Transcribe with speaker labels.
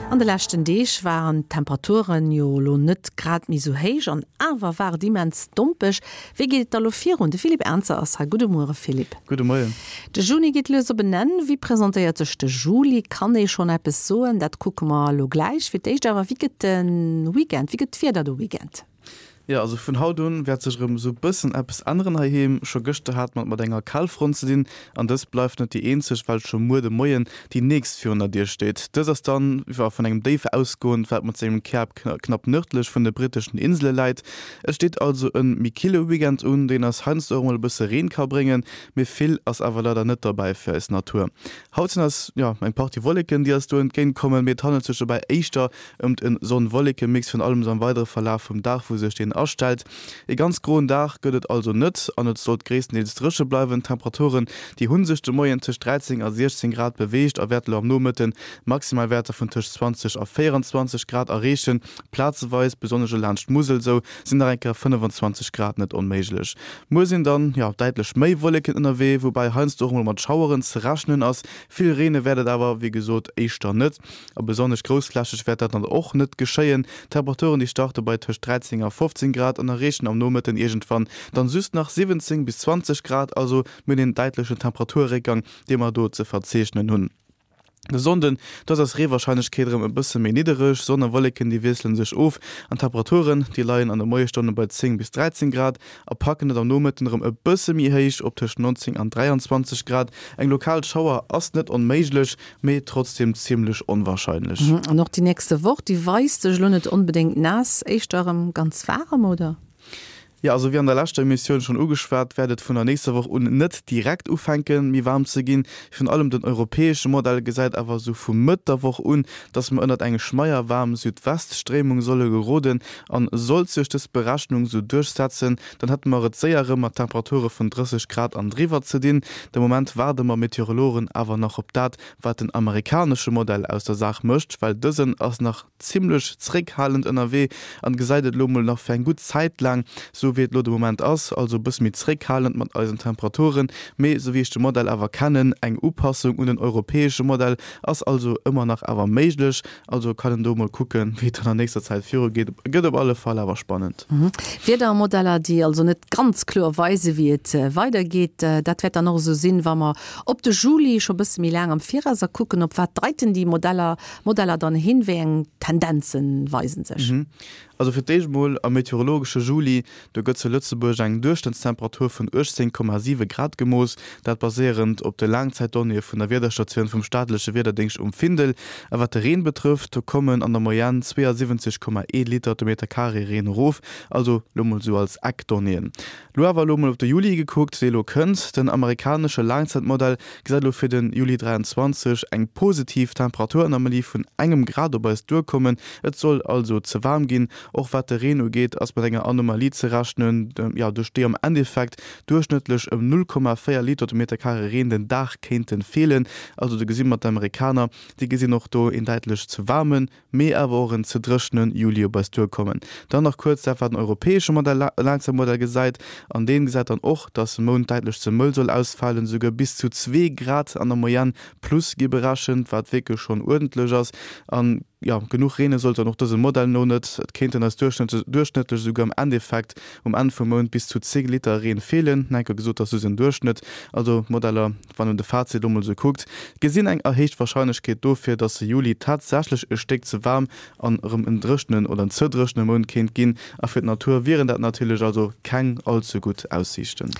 Speaker 1: An de leschten Deeg waren d'Temperaturen jo elo net grad méi sou héich an awer war et immens dompeg. Wéi geet et da lo virun? De Philippe Ernzer ass hei. Gudde Muere Philippe.
Speaker 2: Gudde Moien.
Speaker 1: De Juni geet lues op en Enn. Wéi presentéiert sech de Juli? Kann ee schonn eppes soen? Dat kucke mer elo gläich. Fir d'éischt awer, wéi gëtt de Weekend? Wéi gëtt d'Wieder de Weekend?
Speaker 2: Jo, also vun haut un wäert sech erëm esou bëssen eppes änneren heiheem. Scho gëschter hate mer et mat enger Kalfront ze dinn an dës bleift net déi eenzeg, well scho muer de Moien déi nächst virun der Dier steet. Dës ass dann, jo, vun engem Déif ausgoend, wat mat sengem Käerp knapp nërdlech vun de britteschen Insele läit. Et steet also e méi kille Weekend un, deen eis heiansdo och mol e bësse Reen ka bréngen, mee vill ass awer leider net derbäi fir eis Natur. Haut sinn eis, jo, eng Partie Wolleken, déi eis do entgéint kommen, mee et handelt sech dobäi éischter Ëmt en Sonn-Wolleke-Mix, virun allem am weidere Verlaf vum Dag, wou sech deen astellt. E ganz groen Dag gëtt et also net an et sollt gréisstendeels dréche bleiwen. D'Temperaturen, déi hu sech de Moien tëscht 13 a 16 Grad beweegt a wäerte lo am Nomëtten Maximalwäerter vun tëscht 20 a 24 Grad erreechen. Plazeweis, besonnesch elo laanscht d'Musel sou, sinn nach eng Kéier 25 Grad net onméiglech. Muer sinn dann, jo, däitlech méi Wolleken ënnerwee, woubäi heiansdo och mol mat Schaueren ze rechnen ass. Vill reene wäert et awer, wéi gesot, éischter net. A besonnesch groussflächeg wäert dat dann och net geschéien. D'Temperaturen déi starte bei tëscht 13 a 15 Grad an erreechen am Nomëtten iergendwann dann just nach 17 bis 20 Grad, also mir hunn een däitlechen Temperaturréckgang dee mer do ze verzeechnen hunn. De Sonnden, do ass eis Reewarscheinlechkeet erëm e bësse méi niddereg, Sonn a Wolleken déi wiessele sech of an d'Temperaturen déi leien an de Moiesstonne bei 10 bis 13 Grad a packen et am Nomëtten erëm e bësse méi héich op tëscht 19 an 23 Grad. Eng lokal Schauer ass net onméiglech, mee trotzdem zimmlech onwahrscheinlech.
Speaker 1: An och déi nächste Woch, déi weist sech elo net onbedéngt naass, éischter erëm ganz waarem, oder?
Speaker 2: Jo, also wéi an der leschter Emissioun schonn ugeschwat, wäert et vun der nächster Woch un net direkt ufänken, méi waarm ze ginn. Virun allem den europäesche Modell gesäit awer esou vu Mëtt der Woch un, dass mer ënnert eng schmeierwaarm Südweststréimung solle geroden. An sollt sech dës Berechnung esou duerchsetzen, Dann hätte mer et séier erëm mat Temperature vun 30 Grad an driwwer ze dinn. De Moment waarde mer Meteorologen awer nach op dat, wat den amerikanesche Modell aus der Saach mécht, well dësen ass nach zimmlech zréckhalend ënnerwee an gesäit et elo mol nach fir eng gutt Zäit laang sou wéi et elo de Moment ass, also e bësse méi zréckhalend mat eisen Temperaturen. Mee sou wéi ech de Modell awer kennen, eng Upassung un den europäesche Modell ass also ëmmer nach awer méiglech. Also kann en do mol kucken, wéi et dann an nächster Zäit viru geet. Gëtt op alle Fall awer spannend.
Speaker 1: Wiedermodeller, déi also net ganz kloer weisen, wéi et weidergeet. Dat wäert dann och esou sinn, wa mer op de Juli scho bësse méi laang am Virauser kucken. Op wat deiten déi Modeller Modeller dann hin? Wéi eng Tendenze weisen sech?
Speaker 2: Also fir d'éischt mol am meteorologesche Juli, do gëtt zu Lëtzebuerg eng Duerchschnëttstemperatur vun 18,7 Grad gemooss, dat baséierend op de Laangzäitdonnéeë vun der Wiederstatioun vum staatleche Wiederdéngscht um Findel. A wat de Reen betrëfft, do kommen an der Moyenne 72,1 Liter de Meter Carré Reen erof, also lo mol sou als Eckdonnéeën. Lo awer elo mol op de Juli gekuckt, dee lo kënnt. Den amerikanesche Laangzäitmodell gesäit elo fir de Juli 23 eng positiv Temperaturanomalie vun engem Grad op eis duerkommen. Et soll also ze waarm ginn. Och wat de Reen ugeet, ass mat enger Anomalie ze rechnen, jo, duerch déi am Endeffekt duerchschnëttlech ëm 0,4 Liter de Meter Carré Reen den Dag kéinte feelen. Also do gesi mer d'Amerikaner, déi gesinn och do een däitlech ze waarmen mee awer och en ze dréchene Juli op eis duerkommen. Dann nach kuerz dat wat den europäesche Modell, Laangzäitmodell gesäit, an deen gesäit dann och, dass de Mount däitlech ze mëll soll ausfalen, esouguer bis zu zwee Grad an der Moyenne plus gi berechent, wat wierklech schonn uerdentlech ass. An jo, genuch reene sollt dann och dësem Modell no net, et kéinten eis duerchschnëttlech esouguer am Endeffekt um Enn vum Mount bis zu 10 Liter Reen feelen. Enke gesot, dat ass just en Duerchschnëtt, also d'Modeller Wann een de Fazit elo mol esou kuckt, gesinn eng erhéicht Warscheinlechkeet dofir, dass de Juli tatsächlech e Stéck ze waarm an erëm en dréchenen oder en ze dréchene Mount kéint ginn. A fir d'Natur wieren dat natierlech also keng all ze gutt Aussiichten.